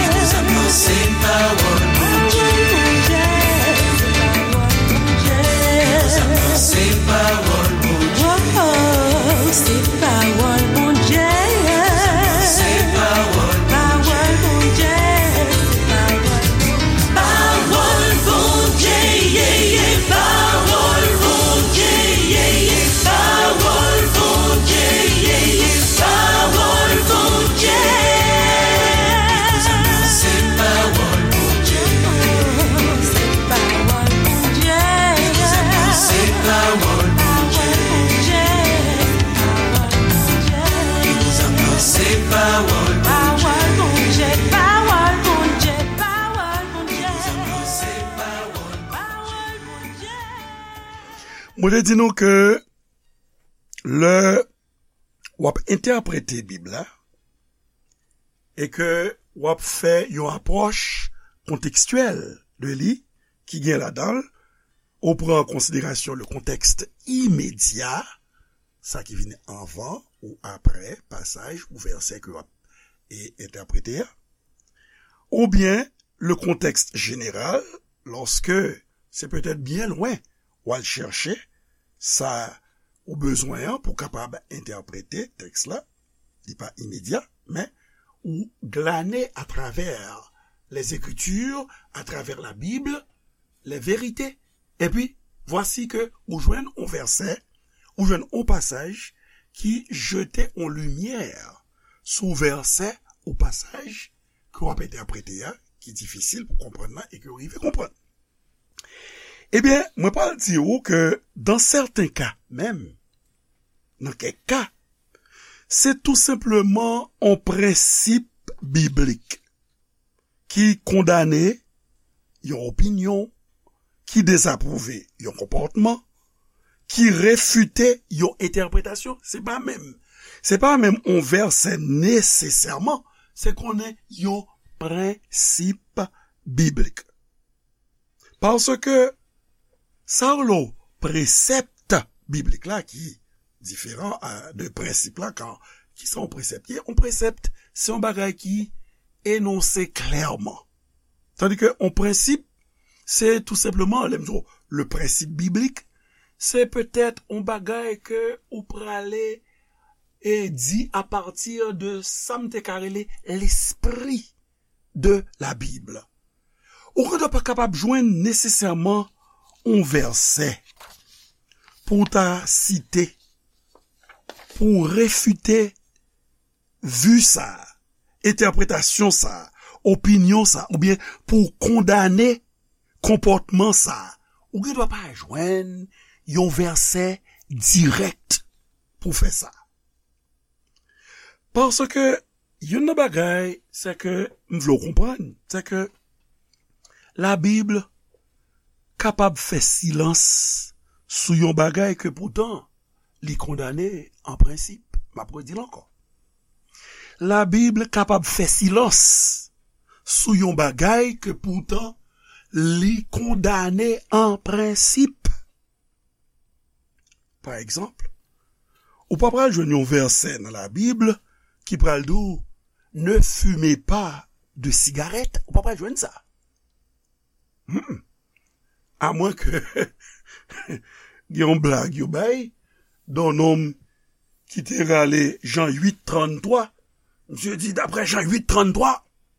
Kozann nan se pawòl Bondye. Kozann nan se pawòl Bondye. Oh, se pawòl Bondye. Kozann nan se pawòl Bondye. Pawòl Bondye. Pawòl Bondye, ye, ye, pawòl Bondye, ye, ye, pawòl Bondye, ye, ye, pawòl Bondye. Se pawòl Bondye. Se pawòl Bondye. Se pawòl Bondye. Se pawòl Bondye. Pawòl Bondye, pawòl Bondye, pawòl Bondye. Pawòl Bondye. Mwen te di nou ke lè w ap entèprete Bib la e ke w ap fè yon apwòch kontekstyèl de li ki gen ladan l, ou pran an konsiderasyon le contexte immédiat, sa ki vini anvan ou apre pasaj ou vèsè ke w ap e, entèprete a, oubyen le contexte général, lòske se petèt byen lwen w al chèche sa ou bezwen an pou kapab entèprete tèks la, li pa imedya, men ou glane atravè les Écritures, atravè la Bib, les vérités. Epi, vwasi ke ou jwenn yon vèsè, ou jwenn yon pasaj ki jete yon limyè sou vèsè ou pasaj ke w ap entèprete a, ki difisil pou konprann nan e ke w rive konprann. Ebyen, mwen pral di ou ke, dans certains cas menm, nan kèk ka, se tou senpleman yon prensip biblik ki kondane yon opinyon, ki dezapwouve yon konpòtman, ki refite yon entèpretasyon. Se pa menm, se pa menm yon vèsè nesesèman, se konnen yon prensip biblik. Paske sa yo rele presèp biblik la ki diferan a, de prensip la, kan, kisa yon presèp ye? Yon presèp, se yon bagay ki enonse klèman. Tandis que yon prensip, se tou senpleman, lè m di w, le prensip biblik, se petèt yon bagay ke ou prale e di apati de sa m te ka rele lespri de la Bib. Ou gen dwa pa kapab jwenn nesesèman yon vèsè pou w ta site, pou w refite vi sa, entèpretasyon sa, opinyon sa, oubyen pou w kondane konpòtman sa. Ou gen dwa pa jwenn yon vèsè dirèk pou fè sa. Paske youn nan bagay, se ke m vle w konprann, se ke Labib kapab fè silans sou yon bagay ke poutan li kondane an prensip. M ap redi l ankò. Labib kapab fè silans sou yon bagay ke poutan li kondane an prensip. Pa egzanp, ou pa pral jwenn yon vèsè nan Labib ki pral di w, ne fumez pas de cigarette. Ou pa pral jwenn sa. Hmm. Amwen ke gen yon blag yo bay, de yon nonm ki te rale Jan uit trannntwa. Misye di, daprè Jan uit trannntwa,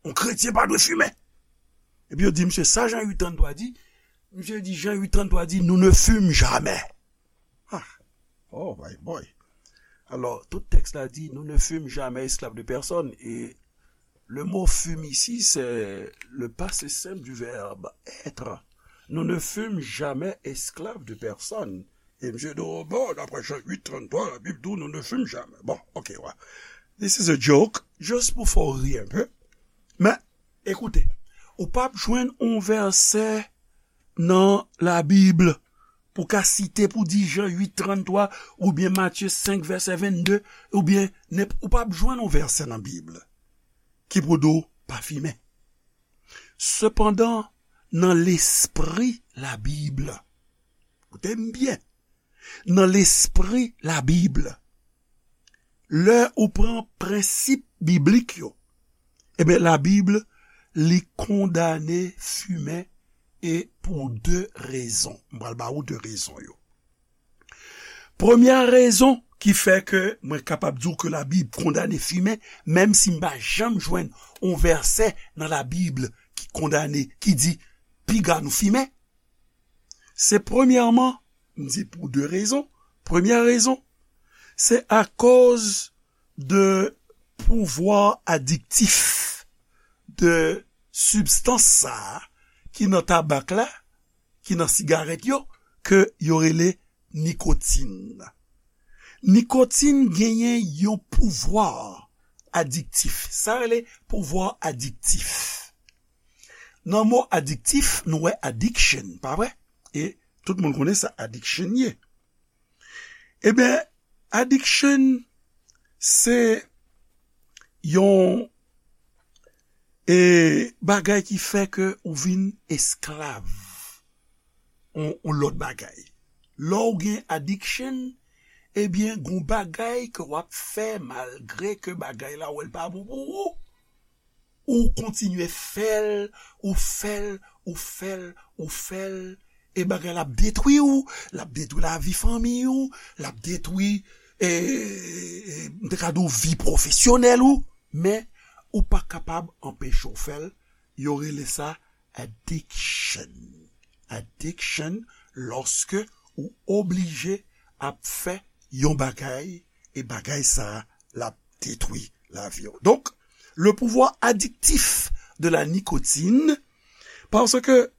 yon kretyen pa dwe fimen. Epi yo di misye, sa Jan uit trannntwa di? Misye di, Jan uit trannntwa di, nous ne fumons jamais. Ah, oh my boy. Alors, tout texte-là dit, nous ne fûmes jamais esclaves de personne. Et le mot fume ici, c'est le passé simple du verbe être. Nous ne fûmes jamais esclaves de personne. E misye di, oh, bon, d'après Jean huit trente-trois, la Bible dit, nous ne fûmes jamais. Bon, ok, ouais. This is a joke. Just pou fè w ri un peu. Men, ekoute, ou p ap jwenn yon vèsè nan Labib pou ka site pou di Jan uit trannntwa, oubyen Matye senk vèsè vennde, oubyen nenp-, ou p ap jwenn yon vèsè nan Bib ki pou di w pa fimen. Sepandan, nan lespri Labib, koute m byen, nan lespri Labib, lè ou pran prensip biblik yo, ebyen, Labib, li kondane fimen, e pou de rezon. M pral ba ou de rezon yo. Premyè rezon ki fè ke mwen kapab di w ke Labib kondane fimen, menm si m pa janm jwenn yon vèsè nan Labib ki kondane, ki di, piga nou fimen, se premyèman, m di pou de rezon. Premyè rezon, se akoz de pouvwa adiktif de sibstans sa a ki nan tabak la, ki nan sigarèt yo, ke yo rele nikotin. Nikotin genyen yon pouvwa adiktif. Sa rele pouvwa adiktif. Nan mo adiktif, nou wè addiction, pa vre? E tout moun konnen sa addiction ye. Ebyen, addiction, se yon, e, bagay ki fè ke ou vin esklav yon, yon lòt bagay. Lè w gen addiction, ebyen, gon bagay ke w ap fè malgre ke bagay la, w wè l pa bon pou ou. Ou kontinye fè l, ou fè l, ou fè l, ou fè l, e bagay la ap detwi w, l ap detwi lavi fanmi w, l ap detwi, e, e, m te ka di w vi pwofesyonèl ou, men ou pa kapab anpeche w fè l. Yo rele sa addiction. Addiction, lòske ou oblije ap fè yon bagay, e bagay sa a, l ap detwi lavi w. Donk, le pouvoir addictif de la nicotine, parce que,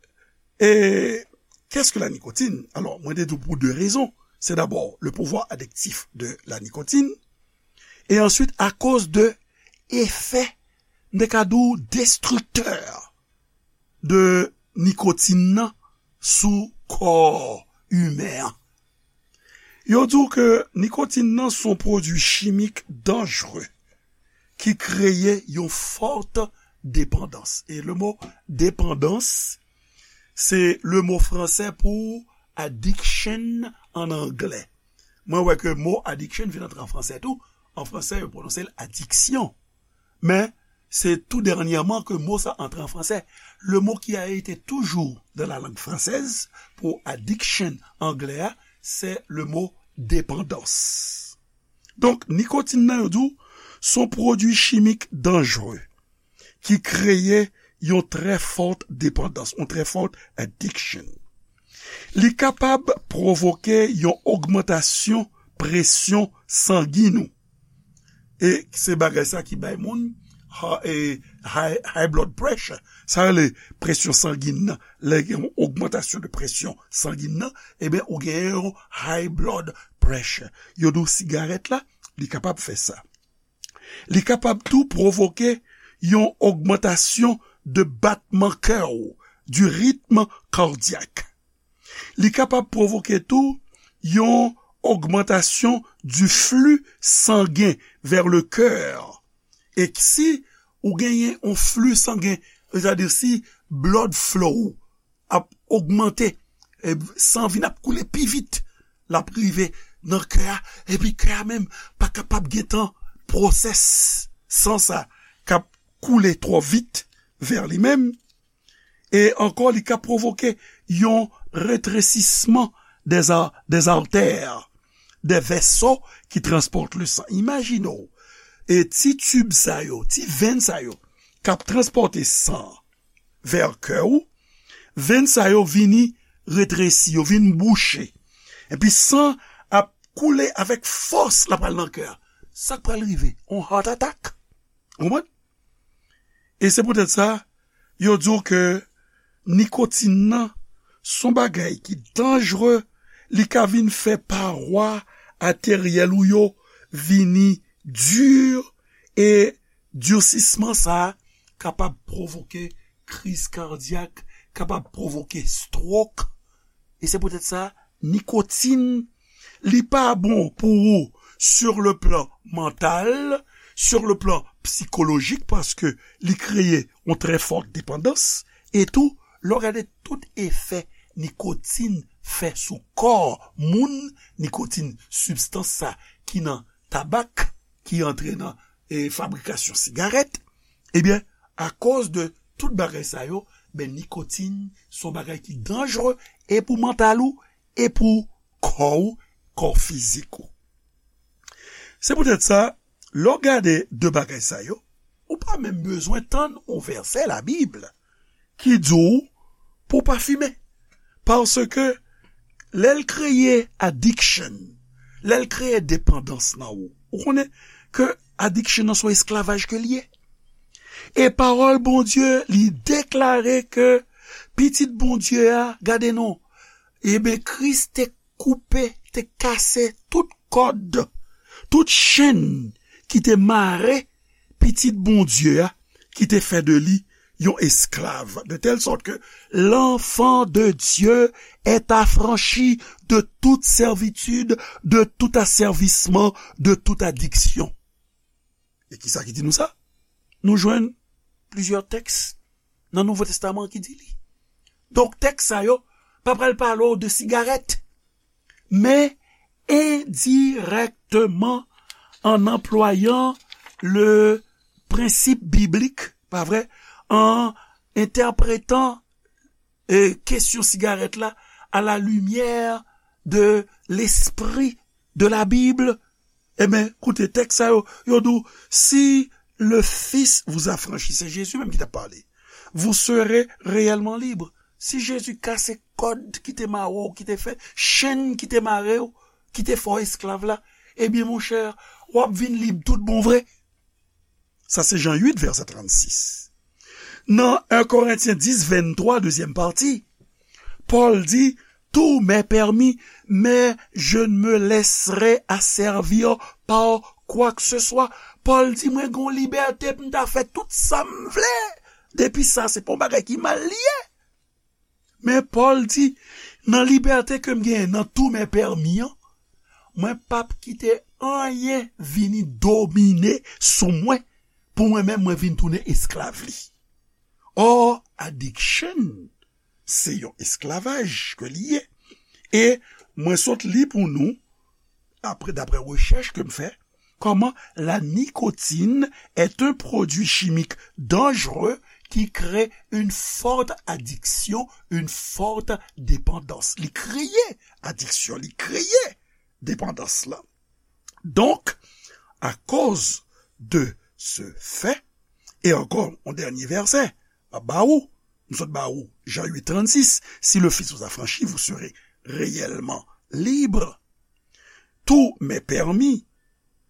et qu'est-ce que la nicotine? Alors, mwen te di w pou de rezon. Se dabò le pouvoir addictif de la nicotine, e answit akoz de efè, m te ka di w, destriktè de nikotin nan sou kò imen an. Yo di w ke nikotin nan se yon pwodui chimik danjre ki kreye yon fòt depandans. E le mo depandans, se le mo fransè pou addiction an anglè. Mwen wè ke mo addiction vin antre an fransè tou. An fransè, yo pwononse l addiction. Men, se tou dènyèman ke mo sa antre an fransè. Le mot qui a été toujours dans la langue française pou addiction anglè a, c'est le mot dépendance. Donk, nikotin nan, yo di w, se yon pwodui chimik danjre ki kreye yon trè fòt depandans, yon trè fòt addiction. Li kapab pwovoke yon ogmantasyon presyon sangin ou. E se bagay sa ki bay moun ha- e high, high blood pressure. Sa rele presyon sangin nan. Lè gen yon ogmantasyon de presyon sangin nan, ebyen, ou gen yon high blood pressure. Yo di w sigarèt la, li kapab fè sa. Li kapab tou pwovoke yon ogmantasyon de batman kè w, du rythme cardiaque. Li kapab pwovoke tou yon ogmantasyon du flux sanguin vers le cœur. E si ou genyen yon flux sanguin, sètadi si blood flow ap ogmante, e, san vin ap koule pi vit, l ap rive nan kè a, epi kè a menm pa kapab gentan pwosès san sa k ap koule twò vit vè li menm. E ankò, li ka pwovoke yon retresisman des a- des artères, des vaisseaux qui transportent le sang. Imajine w, e ti tib sa yo, ti venn sa yo, k ap transpòte san vè kè w, venn sa yo vini retresi, yo vin bouche. Epi san ap koule avèk fòs, l ap al nan kè a. Sa k pral rive? On heart attack. Ou konprann? E se poutèt sa, yo di w ke nikotin nan se yon bagay ki danjre, li ka vin fè pawa ateryèl ou yo vini di, e dirsisman sa a kapab pwovoke kriz kadyak, kapab pwovoke stroke. E se poutèt sa, nikotin, li pa bon pou ou sur le plan mental, sur le plan psychologique, paske li kreye yon trè fòt depandans. E tou, lè w gade tout efè nikotin fè sou kò moun, nikotin, sibstans sa ki nan tabak, ki antre nan, e, fabrikasyon sigarèt, ebyen, akoz de tout bagay sa yo, ben, nikotin se yon bagay ki danjre e pou mantal ou, e pou kò w, kò fizik ou. Se poutèt sa, lè w gade de bagay sa yo, ou pa menm bezwen tann yon vèsè Labib ki di w pou w pa fimen. Paske lè l kreye addiction, lè l kreye depandans nan ou, ou konnen ke addiction nan se yon esklavaj ke l ye. E pawòl Bondye, li deklare ke Pitit Bondye a, gade non, ebyen, Kris te koupe, te kase tout kòd, tout chenn ki te mare Pitit Bondye a, ki te fè de li yon esklav, de telle sorte que l'enfant de Dieu est affranchi de toute servitude, de tout asservissement, de toute addiction. E kisa ki di nou sa? Nou jwenn plizyè tèks nan Nouvo Testaman ki di li. Donk, tèks sa yo pa pral pale w de sigarèt, men endirèkteman, en employant le principe biblique, pa vre, en interprétant, e, kesyon sigarèt la à la lumière de l'esprit de la Bible. Ebyen, koute, tèks sa yo, yo di w, si le Fils vous affranchit, se Jezi menm ki t ap pale, vous serez réellement libres. Si Jezi kase kòd ki te mare w, ki te fè chenn ki te mare w, ki te fè w esklav la, ebyen, monchè, w ap vin lib tout bon vre. Sa se Jan uit, vèsè trannsis. Nan en Korentyen dis, venntwa, dezyèm pati, Pòl di, tout m'est permis, mais je ne me laisserai asservir par quoi que ce soit. Pòl di, mwen gen yon libète pou m ta fè tout sa m vle. Depi sa se pa yon bagay ki mal li ye. Men Pòl di, nan libète ke m genyen, nan tout m'est permis an, mwen p ap kite anyen vini domine sou mwen, pou mwen menm, mwen vin tounen esklav li. Or, addiction, se yon esklavaj ke li ye. E mwen sot li pou nou, apre, daprè rechèch ke m fè, comment la nicotine est un produit chimique dangereux qui crée une forte addiction, une forte dépendance. Li kreye adiksyon, li kreye depandans lan. Donc, à cause de ce fait, e ankò, yon dènye vèsè, m ap ba ou, m sot ba ou, Jean huit trente-six, si le Fils vous affranchit, vous serez réellement libre. Tout m'est permis,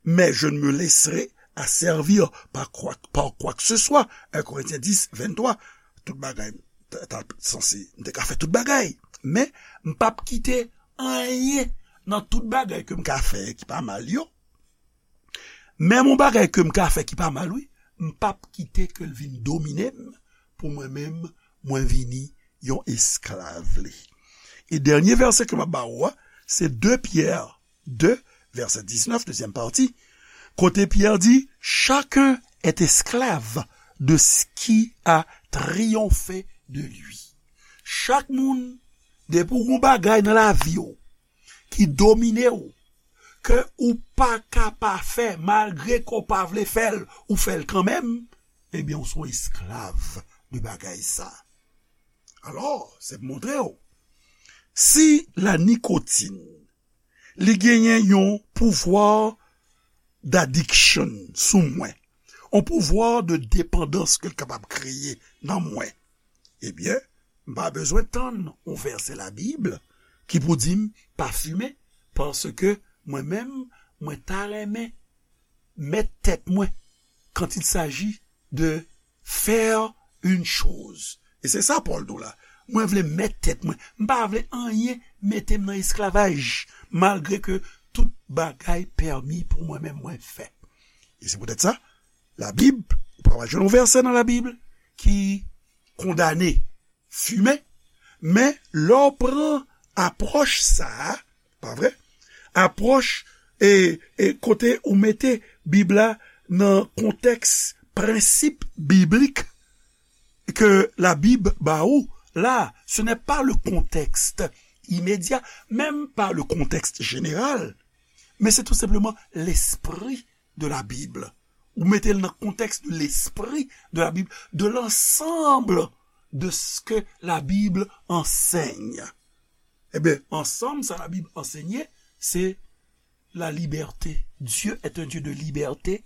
mais je ne me laisserai asservir par quoi, par quoi que ce soit. Un Corinthiens dix, vingt-trois. Tout bagay, ta, ta sanse, m te ka fè tout bagay. Men, m p ap kite anyen nan tout bagay ke m ka fè ki pa mal yo. Menm yon bagay ke m ka fè ki pa mal, wi, m p ap kite ke l vin domine m, pou mwen menm, mwen vini yon esklav li. E dènye vèsè ke m ap ba ou a, se de Pyè de, vèsè diznèf, dezyèm pati, kote Pyè di, chacun est esclave de ce qui a triomphé de lui. Chak moun, depi w gon bagay nan lavi w ki domine w, ke ou pa ka pa fè, malgre ke w pa vle fè l, ou fè l kanmenm, ebyen, ou se yon esklav de bagay sa. Alò, se pou montre w, si la nikotin, li genyen yon pouvwa d'addiction sou mwen, yon pouvwa de depandans ke l kapab kreye nan mwen, ebyen, m pa bezwen tann yon vèsè Labib ki pou di m pa fimen, paske mwen menm, mwen ta renmen mèt tèt mwen quand il s'agit de faire une chose. E se sa Pòl di w la. Mwen vle mèt tèt mwen. M pa vle anyen mete m nan esklavaj, malgre ke tout bagay pèmi pou mwen menm mwen fè. E se poutèt sa, Labib, ou pa pral jwenn yon vèsè nan Labib ki kondane fimen, men lè w pran apwòch sa a, pa vre? Apwòch e, e kote ou mete Bib la nan kontèks prensip biblik ke Labib ba ou la, ce n'est pas le contexte immédiat, même pas le contexte général, mais c'est tout simplement l'esprit de la Bible. Ou mete l nan kontèks de l'esprit de la Bible, de l'ensemble de ce que la Bible enseigne. Ebyen, ansanm sa Labib ansenye, se la liberté. Dieu est un Dieu de liberté.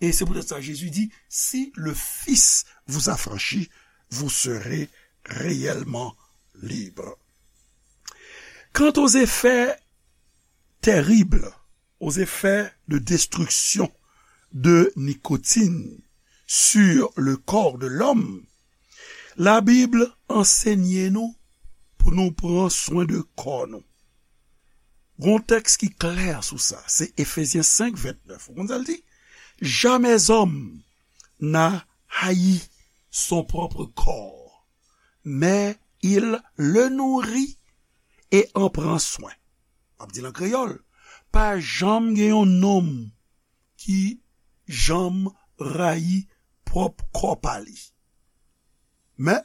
Et c'est peut-être ça, Jésus dit, si le Fils vous affranchit, vous serez réellement libre. Quant aux effets terribles, aux effets de destruction de nicotine sur le corps de l'homme, Labib ansenye nou pou nou pran swen de kò nou. Gon tèks ki klè sou sa, se Efezyen senk ventnèf. Ou konn sa l di? Jamais homme n'a haï son propre corps, mais il le nourrit et en prend soin. M ap di l an kreyòl, pa janm gen yon nonm ki janm rayi pwòp kò pa li. Men,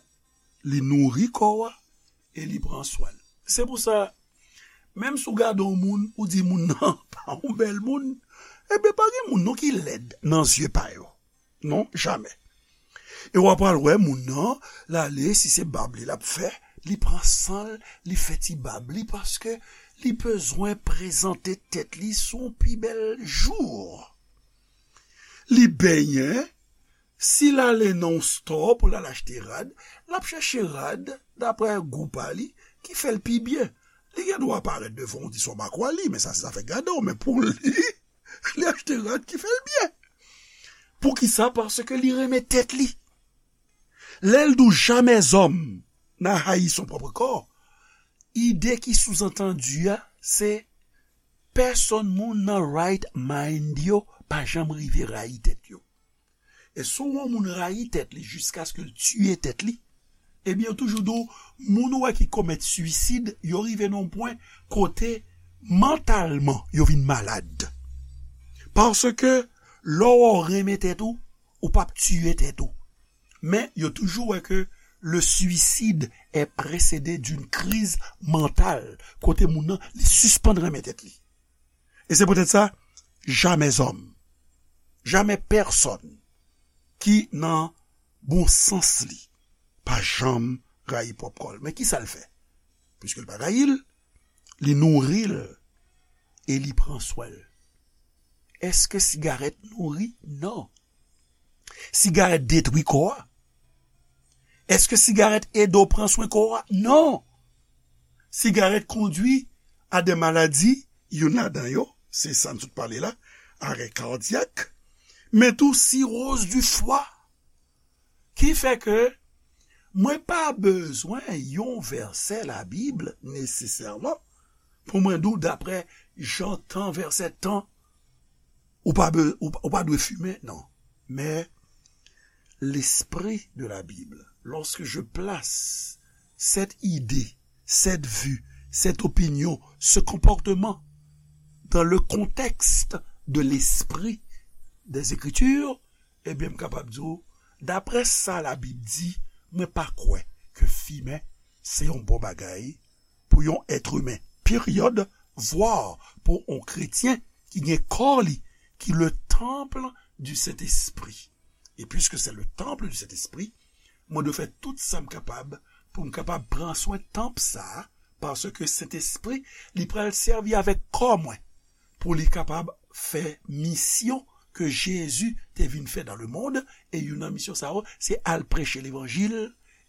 li nouri kò a e li pran swen l. Se pou sa, menm si w gade yon moun, ou di moun nan pa yon bèl moun, ebyen, pa gen moun non ki lèd nan zye pa yo. Non, jamè. E w ap pral wè moun nan, l ale, si se bab li l ap fè, li pran san l, li fè ti bab li, paske li bezwen prezante tèt li sou yon pi bèl jou. Li benyen, si l ale nan yon stò pou l al achte rad, l ap chèche rad daprè gou pa li ki fè l pi byen. Li gen dwa parèt devan w di se yon makwali, men sa se zafè gade w, men pou li, li achte rad ki fè l byen. Poukisa? Paske li renmen tèt li. Lè l di w jamais homme n'a haï son propre corps, ide ki souzantandi a, se pèsòn moun nan right mind yo pa janm rive rayi tèt yo. E si w wè yon moun rayi tèt li jiskaske l tiye tèt li, ebyen, yo toujou di w, moun ou wè ki komèt swisid, yo rive nan yon pwen kote mantalman yo vin malad. Paske lè w wè w renmen tèt ou, ou p ap tiye tèt ou. Men yo toujou wè ke le suicide est précédé d'une crise mentale, kote moun nan, li sispann renmen tèt li. E se poutèt sa, jamais homme, jamais pèsòn ki nan bon sans li pa janm rayi pwòp kò l. Men kisa l fè? Piske l pa rayi l, li nouri l e li pran swen l. Èske sigarèt nouri? Non. Sigarèt detwi kò a? Èske sigarèt ede w pran swen kò a? Non. Sigarèt kondwi a de maladi, youn ladan yo, se sa n sot pale la, arè kadyak, men tou siroz di fwa. Ki fè ke mwen pa bezwen yon vèsè Labib nesesèman pou mwen di w daprè jan tan, vèsè tan, ou pa, be- ou, ou pa dwe fimen, non. Mais l'esprit de la Bible, lorsque je place cette idée, cette vue, cette opinion, ce comportement dans le contexte de l'esprit des Écritures, ebyen, m kapab di w, daprè sa Labib di, mwen pa kwè ke fimen se yon bon bagay pou yon èt imen, peryòd, vwa pou yon kretyen ki gen kò li, ki le temple du Saint-Esprit. E puiske se le temple du Saint-Esprit, mwen dwe fè tout sa m kapab pou m kapab pran swen tanp sa a, paske Sentespri, li pral sèvi avèk kò mwen pou li kapab fè misyon ke Jezi te vin fè dans le monde, e youn nan misyon sa yo, se al preche levanjil,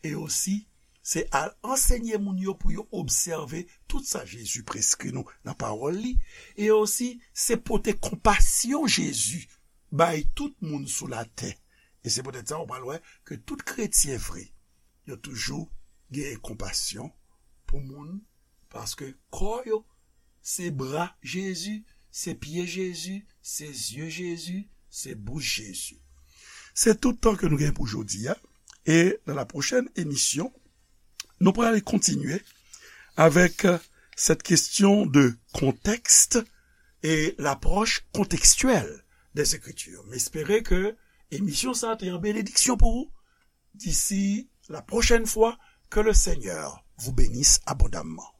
e osi, se al ansenye moun yo pou yo obsève tout sa Jezi preskri nou nan pawòl li, e osi, se pote konpasyon Jezi bay tout moun sou latè. E se poutèt sa, ou pral wè ke tout kretyen vre, yo toujou gen konpasyon pou moun, paske kò yo, se bra Jezi, se pye Jezi, se zye Jezi, se bouch Jezi. Se tout tan ke nou gen pou jodi a. E nan la pwochèn emisyon, nou pral kontinye avèk, euh, cette question de contexte et l'approche contextuelle des Écritures. M espere ke emisyon sa a te yon benediksyon pou ou. D'ici la prochaine fois, que le Seigneur vous bénisse abondamment.